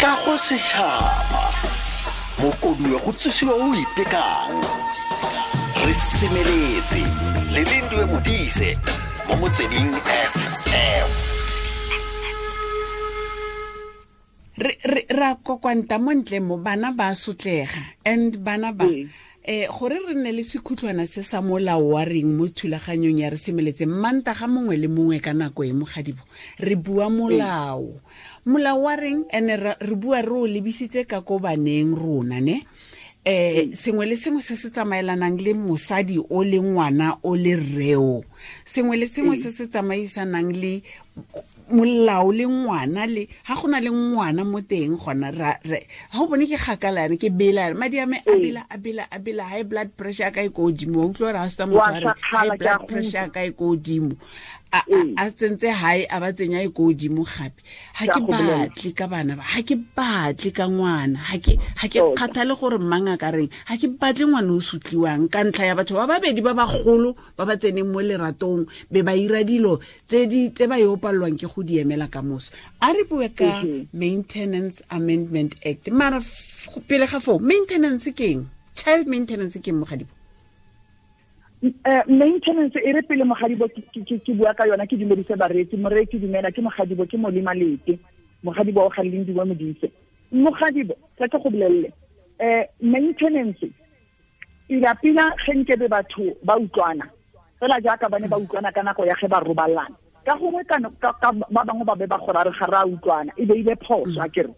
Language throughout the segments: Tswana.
Kago setšhaba mokoduwe go tsosiwa o itekang re semeletse le Lindiwe Modise mo Motsweding FM. Re ra kokwanta mo ntle mo, bana ba sotlega and bana ba gore re nne le sekhutlwana se sa molao wa reng mo thulaganyong ya re semeletse manta ga mongwe le mongwe ka nako e mogadibo re bua molao. Molao wa reng ene re bua re o lebisitse ka ko baneng rona ne. Sengwe le sengwe se se tsamaelanang le mosadi o le ngwana o le rreo, sengwe le sengwe se se tsamaisanang le molao le ngwana le ha gona le ngwana mo teng gona ra ha o bone ke gakala yana ke bela madi a me a bela a bela a bela high blood pressure ka e ko godimo, wa utlwa gore ha se motho a re high blood pressure ka e ko godimo a tsentse high a ba tsenya e ko godimo gape. Ha ke batle ka bana ba, ha ke batle ka ngwana, ha ke kgathale gore mang a ka reng, ha ke batle ngwana o sutliwang ka ntlha ya batho ba babedi ba bagolo ba ba tseneng mo leratong be ba ira dilo tse ba yo palelwang ke go di emela ka moso. A re bue ka Maintenance Amendment Act. Mara pele ga foo, maintenance ke eng? Child maintenance ke eng, Mogadibo? Maintenance e re pele Mogadibo ke bua ka yona, ke dumedise bareetsi. Moreetsi dumela, ke Mogadibo, ke Molema Lete. Mogadibo o ga Lindiwe Modise. Mogadibo, tla ke go bolelele. Maintenance pila-pila ge nkebe batho ba utlwana fela jaaka ba ne ba utlwana ka nako ya ge ba robalana, ka gongwe ka ba bangwe ba be ba gore re ga re a utlwana, e be ile phoso. A kere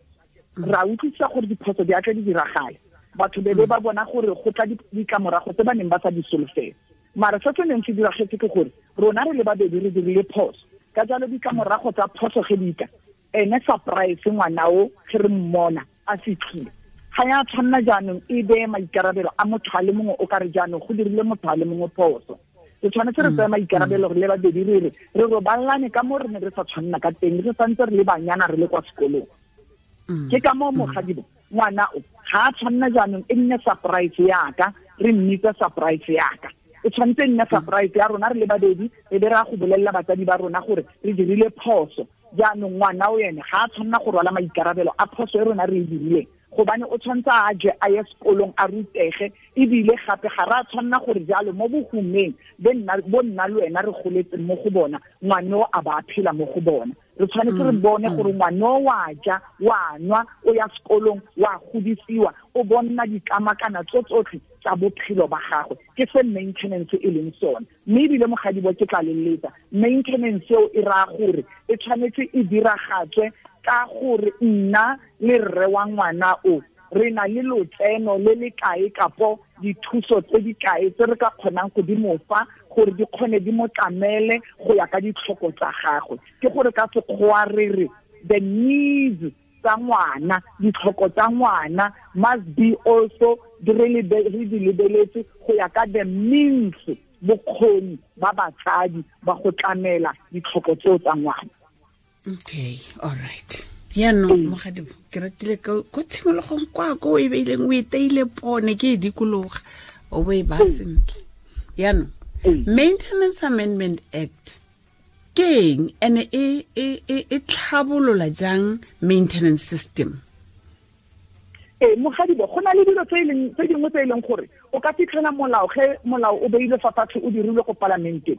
ra utlwisisa gore diphoso di atle di diragale, batho be ba bona gore go tla ditlamorago tse ba neng ba sa di solofela. Mara se se neng se diragetse ke gore rona re le babedi re dirile phoso, ka jalo ditlamorago tsa phoso ge di tla, ene surprise ngwana o ge re mmona a fitlhile ga ya tshwanna jaanong e beye maikarabelo a motho a le mongwe o ka re jaanong go dirile motho a le mongwe phoso. Re tshwanetse re tseye maikarabelo re le babedi, re re re robalane ka mo re ne re sa tshwanna ka teng, re santse re le banyana re le kwa sekolong. Ke ka moo Mogadibo ngwana o ga a tshwanna jaanong e nne surprise yaka, re mmitse surprise yaka. E tshwanetse e nne surprise ya rona re le babedi, re be re a go bolelela batsadi ba rona gore re dirile phoso. Jaanong ngwana o ene ga a tshwanna go rwala maikarabelo a phoso e rona re e dirileng, gobane o tshwanetse a je a ye sekolong a rutege, ebile gape ga re a tshwanna gore jalo mo bohumeng bo nna le wena re goletseng mo go bona, ngwane o a ba a phela mo go bona. Re tshwanetse re bone gore ngwane o wa ja, wa nwa, o ya sekolong, wa godisiwa, o bonna ditlamakana tso tsotlhe tsa bophelo ba gagwe. Ke se maintenance e leng sone. Mme ebile Mogadibo ke tla leletsa, maintenance eo e raya gore e tshwanetse e diragatswe ka gore nna le rre wa ngwana o re na le lotseno le le kae kapo dithuso tse di kae tse re ka kgonang go di mo fa gore di kgone di mo tlamele go ya ka ditlhoko tsa gagwe. Ke gore ka sekgowa re re the needs tsa ngwana, ditlhoko tsa ngwana must be also re di lebeletse go ya ka the means, bokgoni ba batsadi ba go tlamela ditlhoko tseo tsa ngwana. Okay, all right. Yaanong Mogadibo, ke ratile ko tshimologong kwa ko e beileng o e teile pone ke e dikologa o bo e ba sentle. Yaanong Maintenance Amendment Act ke eng, ene e tlhabolola jang maintenance system? Mogadibo, go na le dilo tse dingwe tse e leng gore o ka fitlhela molao ge molao o beilwe fa fatshe o dirilwe ko palamenteng,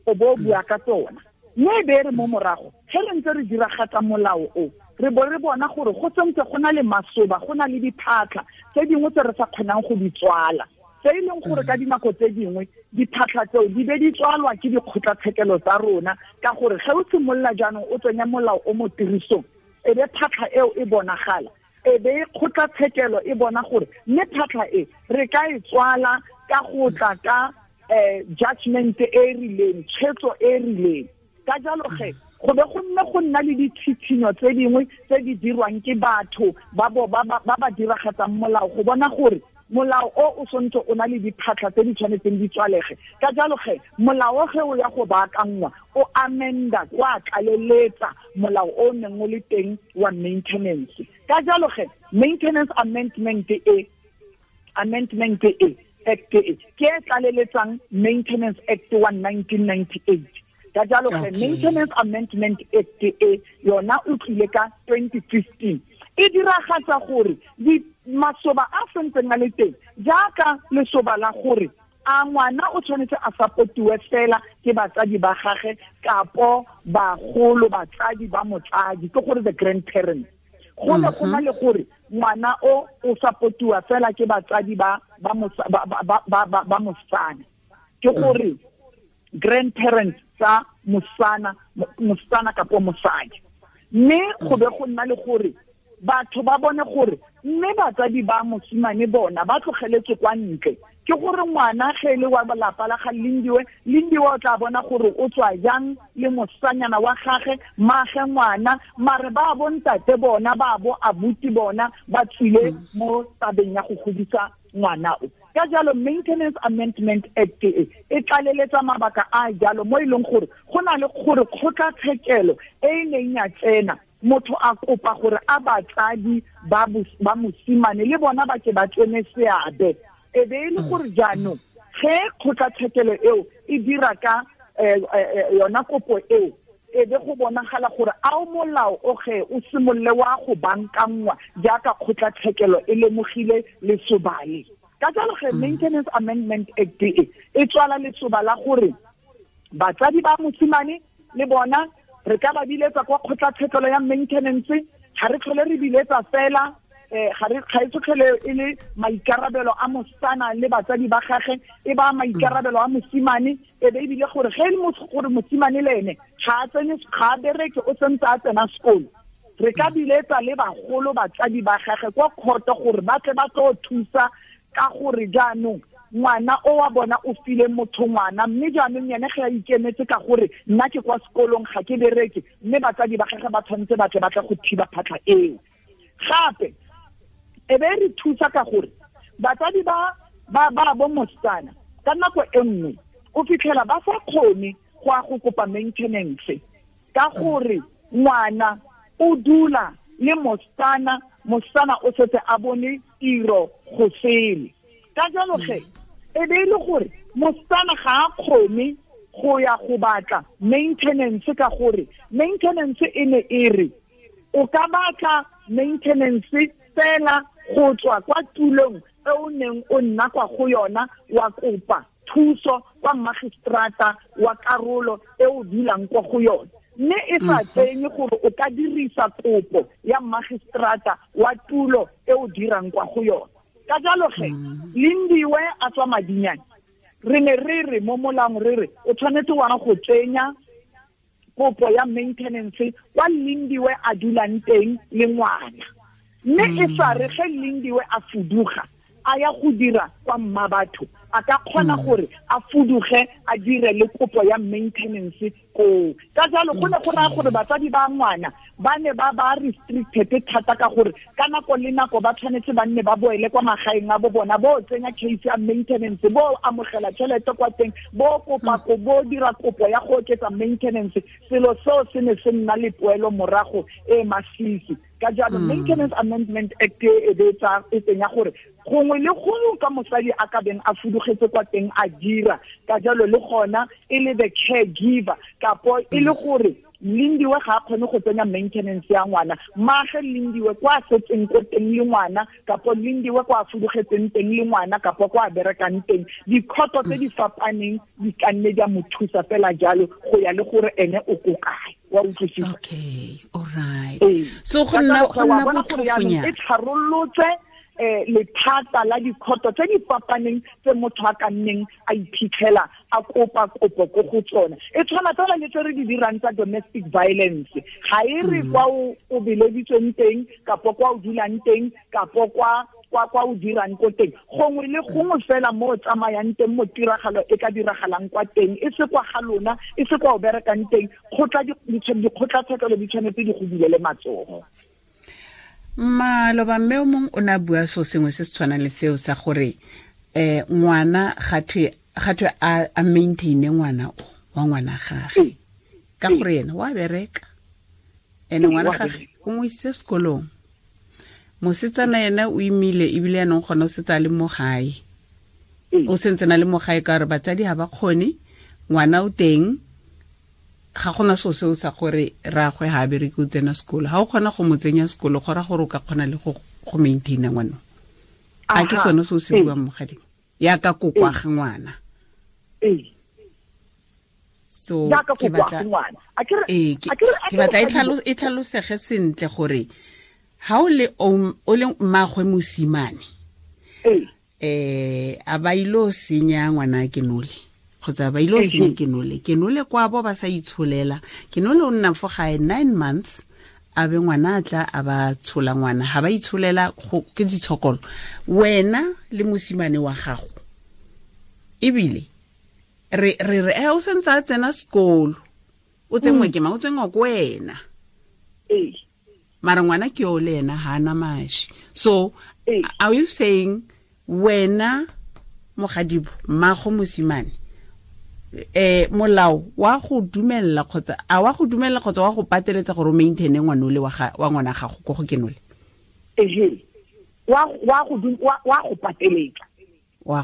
o bo o bua ka tsona. Mme e be re mo morago ge re ntse re diragatsa molao o, re bo re bona gore go sentse go na le masoba, go na le diphatlha tse dingwe tse re sa kgonang go di tswala, tse e leng gore ka dinako tse dingwe diphatlha tseo di be di tswalwa ke dikgotlatshekelo tsa rona, ka gore ge o simolola jaanong o tsenya molao o mo tirisong, e be phatlha eo e bonagala, e be kgotlatshekelo e bona gore mme phatlha e re ka e tswala ka go tla ka judgment e e rileng, tshwetso e e rileng. Ka jalo ge go be go nne go nna le ditshitshinyo tse dingwe tse di dirwang ke batho ba ba diragatsang molao go bona gore molao o o sontse o na le diphatlha tse di tshwanetseng di tswalege. Ka jalo ge molao ge o ya go baakanngwa o amenda kwa tlaleletsa molao o neng o le teng wa maintenance. Ka jalo ge Maintenance Amendment e Act e ke e tlaleletsang Maintenance Act wa 1998. Ka jalo ge Maintenance Amendment Act e yona o tlile ka 2015, e diragatsa gore masoba a sentseng a le teng jaaka lesoba la gore a ngwana o tshwanetse a supportiwe fela ke batsadi ba gagwe kapo bagolo batsadi ba motsadi, ke gore the grandparents. Go ne go na le gore ngwana o supportiwa fela ke batsadi ba mosana, ke gore grandparents tsa mosana kapo mosadi. Mme go be go nna le gore batho ba bone gore mme batsadi ba mosimane bona ba tlogeletse kwa ntle, ke gore ngwana ge le wa lapa la ga Lindiwe, Lindiwe o tla bona gore o tswa jang le mosanyana wa gagwe, mage ngwana, mare ba bo ntate bona ba bo abuti bona ba tswile mo tabeng ya go godisa ngwana o. Ka jalo Maintenance Amendment Act e tlaleletsa mabaka a jalo mo e leng gore go na le gore kgotlatshekelo e e neng ya tsena motho a kopa gore a batsadi ba mosimane le bona ba ke ba tsene seabe, e be e le gore jaanong ge kgotlatshekelo eo e dira ka yona kopo eo, e be go bonagala gore a o molao o ge o simolole wa go bankangwa jaaka kgotlatshekelo e lemogile lesobale. Ka jalo ge Maintenance Amendment Act e tswala lesoba la gore batsadi ba mosimane le bona re ka ba biletsa kwa kgotlatshekelo ya maintenance, ga re tlhole re biletsa fela ga e tlhole e le maikarabelo a mosana le batsadi ba gagwe, e ba maikarabelo a mosimane, e be ebile gore ge e le gore mosimane le ene ga a tsene, ga a bereke, o sentse a tsena sekolo, re ka biletsa le bagolo batsadi ba gagwe kwa kgoto gore ba tle ba tlo thusa ka gore jaanong ngwana o wa bona o file motho ngwana, mme jaanong yene ge a ikemetse ka gore nna ke kwa sekolong ga ke bereke, mme batsadi ba gagwe ba tshwanetse ba tle ba tle go thiba phatlha eo. Gape e be re thusa ka gore batsadi ba ba bo mosana ka nako e nngwe o fitlhela ba sa kgone go ya go kopa maintenance ka gore ngwana o dula le mosana, mosana o setse a bone tiro go sele. Ka jalo ge e be e le gore mosana ga a kgone go ya go batla maintenance ka gore maintenance e ne e re o ka batla maintenance fela go tswa kwa tulong e o neng o nna kwa go yona, wa kopa thuso kwa magistrata wa karolo e o dulang kwa go yona, mme e sa tsenye gore o ka dirisa kopo ya magistrata wa tulo e o dirang kwa go yona. Ka jalo ge Lindiwe a tswa Madinyane, re ne re re mo molaong re re o tshwanetse wa go tsenya kopo ya maintenance kwa Lindiwe a dulang teng le ngwana, mme e sa re ge Lindiwe a fuduga a ya go dira kwa Mmabatho, a ka kgona gore a fuduge a dire le kopo ya maintenance koo. Ka jalo go ne go raya gore batsadi ba ngwana ba ne ba ba restricted thata ka gore ka nako le nako ba tshwanetse ba nne ba boele kwa magaeng a bo bona, bo tsenya case ya maintenance, bo amogela tšhelete kwa teng, bo kopa ko bo dira kopo ya go oketsa maintenance. Selo seo se ne se nna le poelo morago e masisi. Ka jalo Maintenance Amendment Act e be e tsenya gore gongwe le gongwe ka mosadi a ka beng a fudugetse kwa teng a dira, ka jalo le gona e le the caregiver, kapo e le gore Lindiwe ga a kgone go tsenya maintenance ya ngwana, mage Lindiwe kwa setseng ko teng le ngwana, kapo Lindiwe kwa fudugetseng teng le ngwana, kapo kwa berekang teng. Dikhoto tse di fapaneng di ka nne di a mo thusa fela jalo go ya le gore ene o ko kae. Wa utlwisisa? Okay, all right. So go nna botlhofonyana e tlharolotse lethata la dikhoto tse di fapaneng tse motho a ka nneng a iphitlhela a kopa kopo ko go tsona. E tshwana fela le tse re di dirang tsa domestic violence, ga e re kwa o beleditsweng teng, kapo kwa o dulang teng, kapo kwa o dirang ko teng, gongwe le gongwe fela mo o tsamayang teng mo tiragalo e ka diragalang kwa teng, e se kwa ga lona, e se kwa o berekang teng, dikgotlatshekelo di tshwanetse di go bulele matsogo. Maloba mme o mongwe o ne a bua so sengwe se se tshwanang le seo sa gore ngwana gatwe a maintaine ngwana o wa ngwana gage ka gore ena wa bereka, ene ngwana gage o mo isitse sekolong, mosetsana ena o imile ebile yanong gona o setse a le mo gae, o sentse na le mo gae ka gore batsadi ga ba kgone, ngwana o teng, ga gona so seo sa gore ragwe ha bereke o tsena sekolo. Ha o kgona go mo tsenya sekolo go ra gore o ka kgona le go maintaina ngwana. A ke sone se o se buang mogadi ya ka kokwa ga ngwana. So ke batla ke batla e tlhalosege sentle gore ha o le o le mmagwe mosimane a ba ilo senya ngwana ke nole kgotsa ba ilo senya ke nole kwa bo ba sa itsholela ke nole o nna fo gae 9 months a be ngwana a tla a ba tshola ngwana ha ba itsholela ke ditshokolo wena le mosimane wa gago ebile re re re o sentse a tsena sekolo o tsengwe ke mang o tsengwa ko wena mara ngwana ke o le ena ha ana mashi. So are you saying wena mogadibo mmago mosimane molao wa go dumella kgotsa a wa go dumella kgotsa wa go pateletsa gore o maintaine ngwanole wa ngwana gago ko go kenole? Wa go pateletsa.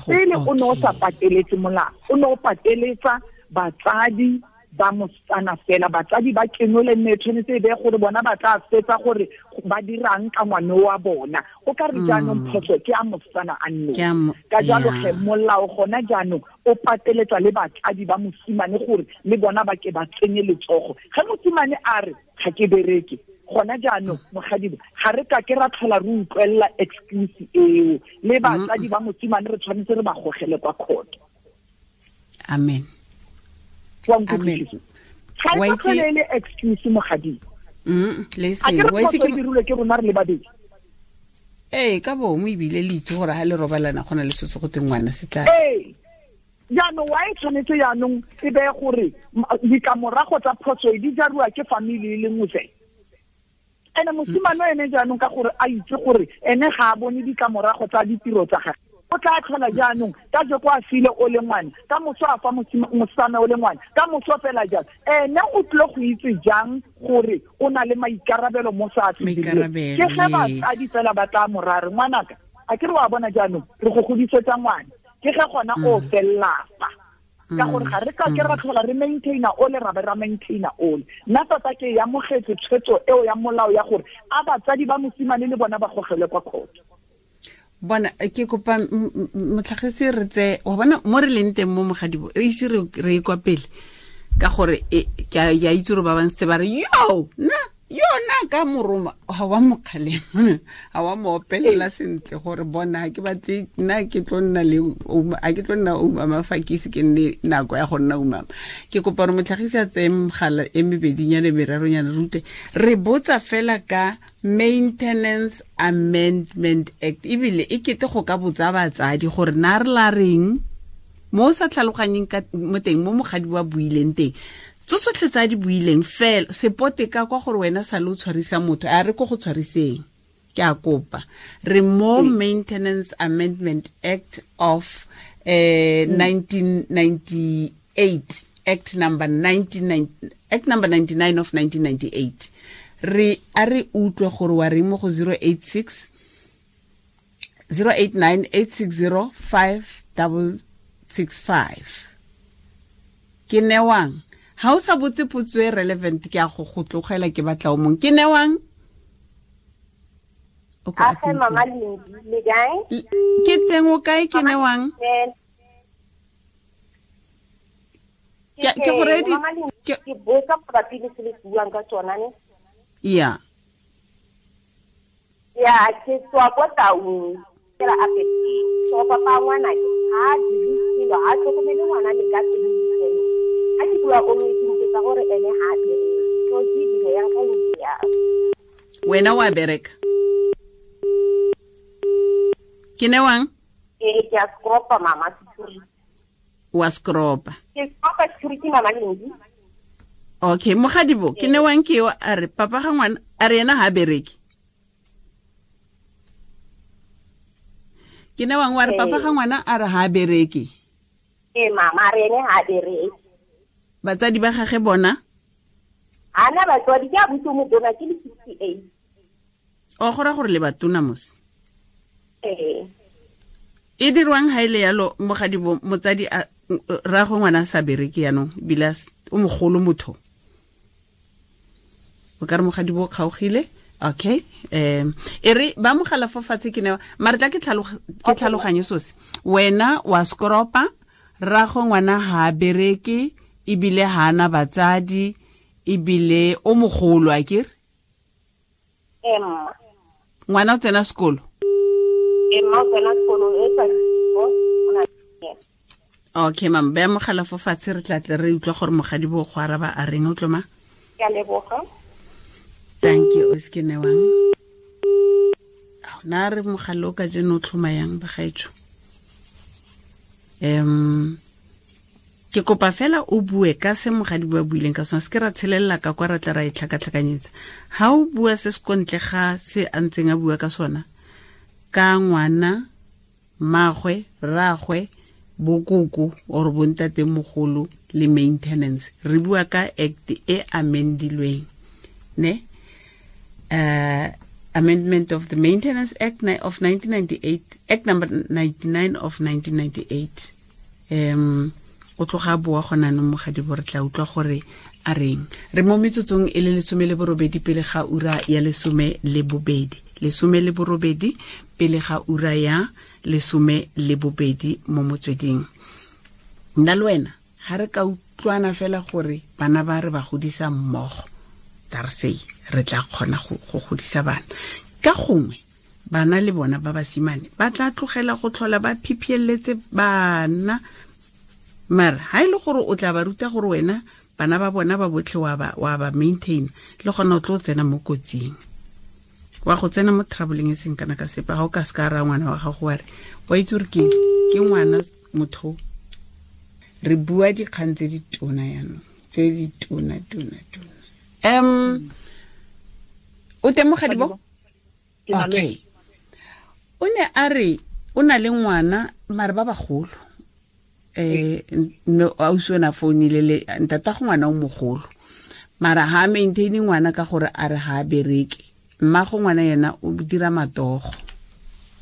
Pele o ne o sa pateletse molao, o ne o pateletsa batsadi ba mosetsana fela, batsadi ba kenole mme tshwanetse e be gore bona ba tla fetsa gore ba dirang ka ngwane wa bona. O ka re jaanong phoso ke a mosetsana a nne. Ka jalo ge molao gona jaanong o pateletsa le batsadi ba mosimane gore le bona ba ke ba tsenye letsogo. Ge mosimane a re ga ke bereke gona jaanong mogadibo ga re ka ke ra tlhola re utlwelela excuse eo, le batsadi ba mosimane re tshwanetse re ba gogele kwa court. Amen. Amen. Ga e tlhole excuse mogadibo. Le se wa itse ke dirilwe ke rona re le babedi. Ka bomo ebile le itse gore ha le robalana gona le se se go teng ngwana se tla. Jaanong wa e tshwanetse jaanong e be gore ditlamorago tsa phoso e di jariwa ke family e le nngwe fela. Ene mosimane ene jaanong ka gore a itse gore ene ga a bone ditlamorago tsa ditiro tsa gagwe, o tla tlhola jaanong ka jeko a file o le ngwana, ka moso a fa mosetsana o le ngwana, ka moso fela jang. Ene o tlile go itse jang gore o na le maikarabelo mo sa a ke ge batsadi fela ba tla morare ngwanaka a ke re wa bona jaanong re go godisetsa ngwana, ke ge gona o fellapa ka gore ga re ka ke ra tlhola re maintaina ole ra be ra maintaina ole. Nna tota ke amogetse tshwetso eo ya molao ya gore a batsadi ba mosimane le bona ba gogelwe kwa court. Bona ke kopa motlhagisi re tse wa bona mo re leng teng mo mogadibo e ise re e kwa pele ka gore ke a itse gore ba bantse ba re yo nna yona ka moroma ga wa mo kgalema ga wa mo opelela sentle gore bona ke batle nna ke tlo nna le a ke tlo nna umama fa ke ise ke nne nako ya go nna umama. Ke kopa gore motlhagisi a tseye mogala e mebedinyana meraronyana rute re botsa fela ka Maintenance Amendment Act ebile e kete go ka botsa batsadi gore na re la reng mo o sa tlhaloganyeng ka mo teng mo mogadi wa buileng teng tsotlhe tsa di buileng fela sepote ka kwa gore wena sa le o tshwarisa motho a re ko go tshwariseng. Ke a kopa re mo Maintenance Amendment Act of 1998 Act number 99 Act number 99 of 1998 re a re utlwe gore wa reng mo go 086 089 860 5665. Ke newang ha o sa botse potso e relevant ke a go go tlogela ke batla o mong. Ke newang? Okay, mama Lindi, le kae? Ke teng o kae ke newang? Ke go ready ke botsa mabapi le se le buang ka tsona ne? Yeah. Ya ke tswa kwa Taung ke ra apete. So papa ngwana ke ha dirisilo ha tlhokomele ngwana le ka teng. A ke bua o mo itse gore ene ha bereke. So ke dilo yang ka ya. Wena wa bereka? Ke newang? Ke a skropa mama security. Wa skropa. Ke skropa security mama Lindi. Okay, mogadibo ke newang ke yo a re papa ga ngwana a re ena ha bereke. Ke newang wa re papa ga ngwana a re ha bereke. Mama a re ene ha bereke. Batsadi ba gagwe bona? Ana batswadi ke a butse mo bona ke le 68. O gora gore le batona mose. E dirwang ha ile yalo mogadibo motsadi a ra go ngwana sa bereke yanong bila o mogolo motho. O ka re mogadi bo kgaogile. Okay. E re ba mogala fo fatshe ke ne mare tla ke tlhaloganye sose. Wena wa skropa, rrago ngwana ha a bereke, ebile ha ana batsadi, ebile o mogolo a kere? Mma. Ngwana o tsena sekolo? Mma o tsena sekolo e sa. Okay, mam, ba mogala fo fatshe re tla tle re utlwa gore mogadi bo go araba a reng o tloma? Ke a leboga. Thank you, o se ke newang. Na re mogala o ka jeno o tlhoma yang bagaetsho? Ke kopa fela o bue ka se mogadi bo a buileng ka sona, se ke ra tshelelela ka kwa ra tla ra e tlhakatlhakanyetsa. Ha o bua se se kontle ga se a ntseng a bua ka sona, ka ngwana, mmagwe, rragwe, bokoko or bontate mogolo le maintenance, re bua ka act e amendilweng, ne? Amendment of the Maintenance Act of 1998, Act number 99 of 1998. O tloga bua gona no mogadi bo re tla utlwa gore a reng. Re mo metsotsong e le 18 pele ga ura ya 12. 18 pele ga ura ya 12 mo motsweding. Nna le wena ha re ka utlwana fela gore bana ba re ba godisa mmogo, tarsei re tla kgona go godisa bana. Ka gongwe bana le bona ba basimane ba tla tlogela go tlhola ba phiphieletse bana, mara ha ile gore o tla ba ruta gore wena bana ba bona ba botlhe wa ba maintain, le gona o tlo tsena mo kotsing, wa go tsena mo troubling e seng kana ka sepe. Ga o ka se ka ra ngwana wa gago wa re wa itse gore ke ke ngwana motho. Re bua dikgang tse di tona yanong, tse di tona tona tona. O teng mogadi bo? Okay. O ne a re o na le ngwana mare ba bagolo. Mme ausi o ne a founile le ntata go ngwana o mogolo, mara ha maintain ngwana ka gore a re ha bereke. Mma go ngwana yena o dira matogo,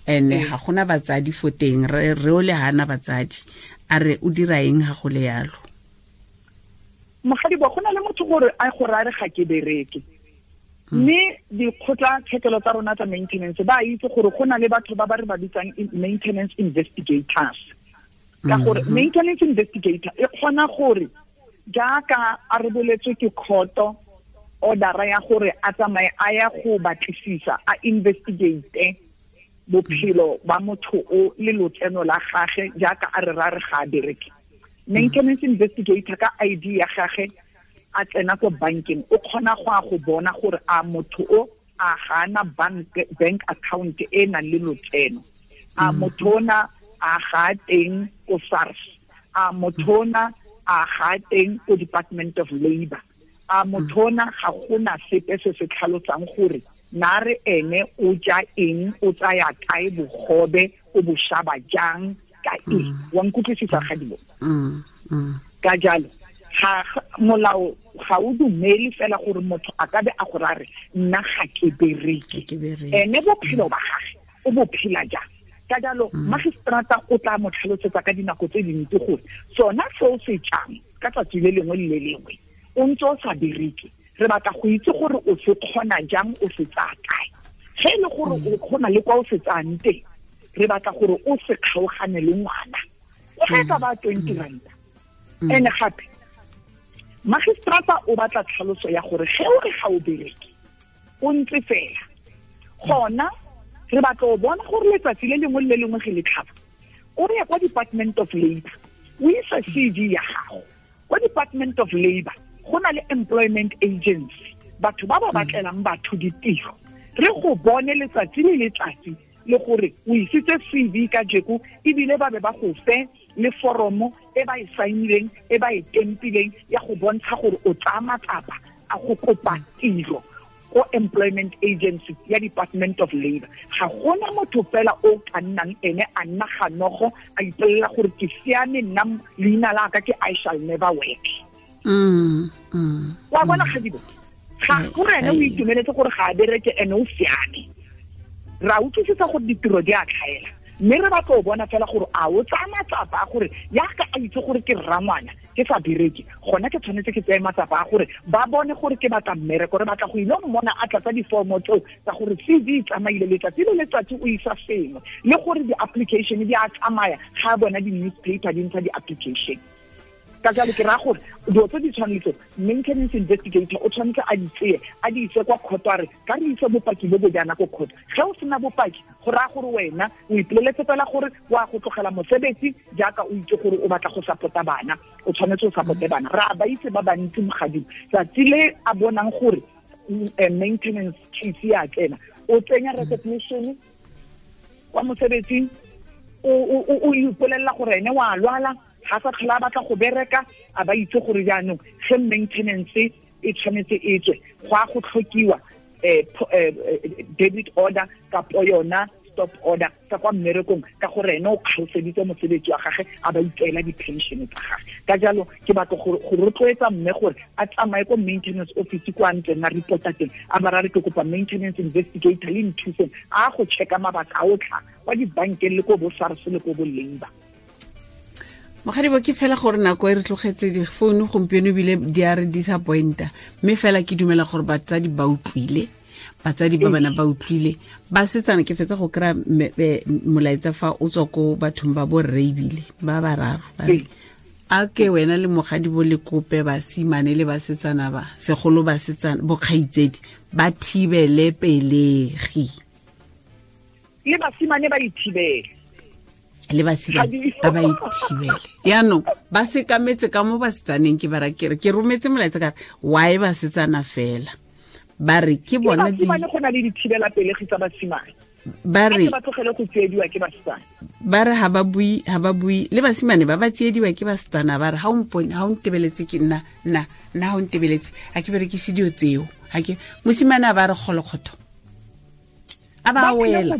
ene ga gona batsadi fo teng, re o le hana batsadi. A re o dira eng ha go le yalo? Mogadi bo, go na le motho gore a go ra re ga ke bereke. Mme dikgotla tshekelo tsa rona tsa maintenance ba itse gore go na le batho ba ba re ba bitsang maintenance investigators. Ka gore maintenance investigator e kgona gore jaaka a re boletswe ke khoto order ya gore a tsamaye a ya go batlisisa, a investigate bophelo ba motho o le lotseno la gage jaaka a re ra re ga a bereke. Maintenance investigator ka ID ya gage a tsena ko bankeng, o kgona go a go bona gore a motho o a gana bank account e nang le lotseno, a motho ona a ga teng ko SARS, a motho ona a ga teng ko Department of Labor, a motho ona ga gona sepe se se tlhalosang gore na re ene o ja eng, o tsaya kae bogobe, o bo shaba jang ka eng. Wa nkutlwisisa gadibo? Ka jalo ga molao ga o dumele fela gore motho a ka be a go rare nna ga ke bereke, ene bophelo ba gage o bo phela jang. Ka jalo magistrata o tla mo tlhalosetsa ka dinako tse dintsi gore sona seo se jang ka tsatsi le lengwe le le lengwe o ntse o sa bereke, re batla go itse gore o se kgona jang, o se tsaya kae. Ge e le gore o kgona le kwa o se tsayang teng, re batla gore o se kgaogane le ngwana, o ge e ka ba 20 ranta. Ene gape magistrata o batla tlhaloso ya gore ge o re ga o bereke o ntse fela, gona re batla o bona gore letsatsi le lengwe le lengwe ge le tlhaba o ya kwa Department of Labor, o isa CV ya gago kwa Department of Labor. Go na le employment agency, batho ba ba batlelang batho ditiro, re go bone letsatsi le letsatsi le gore o isitse CV ka jeko, ebile ba be ba go fe le foromo e ba e saenileng, e ba e tempileng ya go bontsha gore o tsaya matsapa a go kopa tiro ko employment agency ya Department of Labor. Ga gona motho fela o ka nnang ene a nna ganogo a ipolelela gore ke siame nna leina la ka ke I shall never work. Wa bona gadibo, ga gore ene o itumeletse gore ga a bereke ene o siame. Ra utlwisisa gore ditiro di a tlhaela, mme re batla o bona fela gore a o tsaya matsapa a gore yaka a itse gore ke rrangwana, ke sa bereke, gona ke tshwanetse ke tseye matsapa a gore ba bone gore ke batla mmereko, re batla go ile mmona a tlatsa diformo tseo tsa gore CV e tsamaile letsatsi le letsatsi o isa sengwe, le gore di-application di a tsamaya ga a bona di-newspaper di ntsha di-application. Ka jalo ke raya gore dilo tse di tshwanetse maintenance investigator o tshwanetse a di tseye a di ise kwa court, a re ka re ise bopaki bo bo jaana ko court. Ge o sena bopaki go raya gore wena o ipoleletse fela gore wa go tlogela mosebetsi jaaka o itse gore o batla go support-a bana, o tshwanetse o support-e bana. Re a ba itse ba bantsi mogadimo, tsatsi le a bonang gore maintenance case ya tsena, o tsenya resignation kwa mosebetsing, o ipolelela gore ene wa lwala, ga sa tlhola a batla go bereka, a ba itse gore jaanong ge maintenance e tshwanetse e tswe, go a go tlhokiwa debit order kapo yona stop order ka kwa mmerekong, ka gore ene o kgaoseditse mosebetsi wa gagwe a ba itseela di-pension tsa gagwe. Ka jalo ke batla go rotloetsa mme gore a tsamaye ko maintenance office kwa ntleng a reporta teng, a ba re ke kopa maintenance investigator le nthuseng a go checka mabaka a otlha kwa dibankeng le ko bo SARS le ko bo Labour. Mogadibo, ke fela gore nako e re tlogetse difounu gompieno ebile di a re disappointa, mme fela ke dumela gore batsadi ba utlwile, batsadi ba bana ba utlwile, basetsana ke fetsa go kry-a molaetsa fa o tswa ko bathong ba borre ebile ba bararo ba re, a ke wena le mogadibo le kope basimane le basetsana ba segolo basetsana bokgaitsedi ba thibele pelegi, le basimane ba ithibele, le basimane ba ba ithibele. Yaanong ba sekametse ka mo basetsaneng, ke bara ke re ke rometse molaetsa ka re why basetsana fela, ba re ke bona di basimane go na le dithibela pelegi tsa basimane, ba re ba tlogele go tsiediwa ke basetsana, ba re ha ba bui le basimane ba ba tsiediwa ke basetsana, ba re ha o mpone, ha o ntebeletse ke nna nna nna, ha o ntebeletse a ke berekise dio tseo, ha ke mosimane a ba re kgolokgotho a ba wela.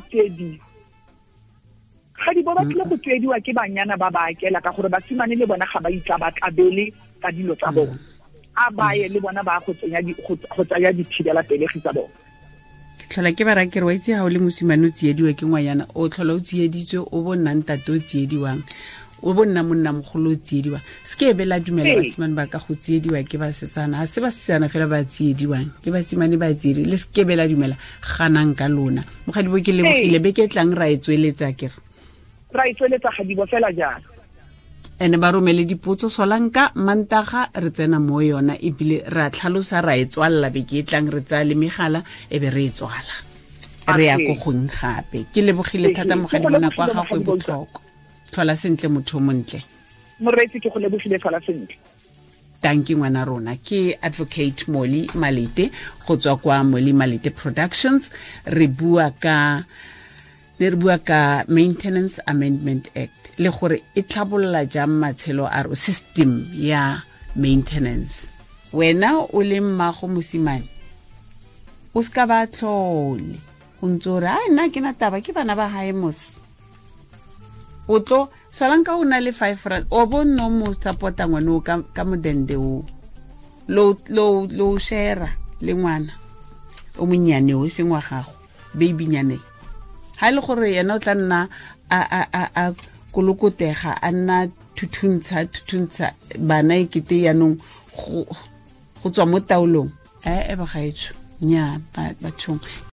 Ga di bo ba tlile go tsiediwa ke banyana ba ba akela, ka gore basimane le bona ga ba itla ba tlabele ka dilo tsa bona, a ba ye le bona ba go tsenya go tsaya dithibela pelegi tsa bona. Ke tlhola ke ba ra ke re wa itse ha o le mosimane o tsiediwa ke ngwanyana, o tlhola o tsieditswe, o bo nna ntate o tsiediwang, o bo nna monna mogolo o tsiediwa. Se ke be la dumela basimane ba ka go tsiediwa ke basetsana, ha se basetsana fela ba tsiediwang, ke basimane ba tsiedi, le se ke be la dumela, ganang ka lona. Mogadibo ke lebogile, beke tlang ra e tsweletsa ke re ra e tsweletsa gadibo fela jalo. Ene ba romele dipotso solanka mantaga re tsena mo yona, ebile ra tlhalosa ra e tswalla beke e tlang, re tsaya le megala e be re e tswala, re ya ko gong gape. Ke lebogile thata mogadibo, nako ya gago e botlhokwa. Tlhola sentle motho o montle. Moreetsi, ke go lebogile, tlhola sentle. Tanki ngwana rona, ke Advocate Molly Malete go tswa kwa Molly Malete Productions. Re bua ka Maintenance Amendment Act le gore e tlhabolola jang matshelo a ro system ya maintenance. Wena o le mmago mosimane o ska ba tlhole o ntse o re a nna ke na taba ke bana ba hae mos, o tlo solanka o na le 5 rand o bo no mo support-a ngwane o ka modende o lo share le ngwana o monnyane o seng wa gago, baby nyane. Ha le gore yena o tla nna a kolokotega, a nna thuthuntsha bana e kete yanong go tswa mo taolong. E bagaetsho nya bathong.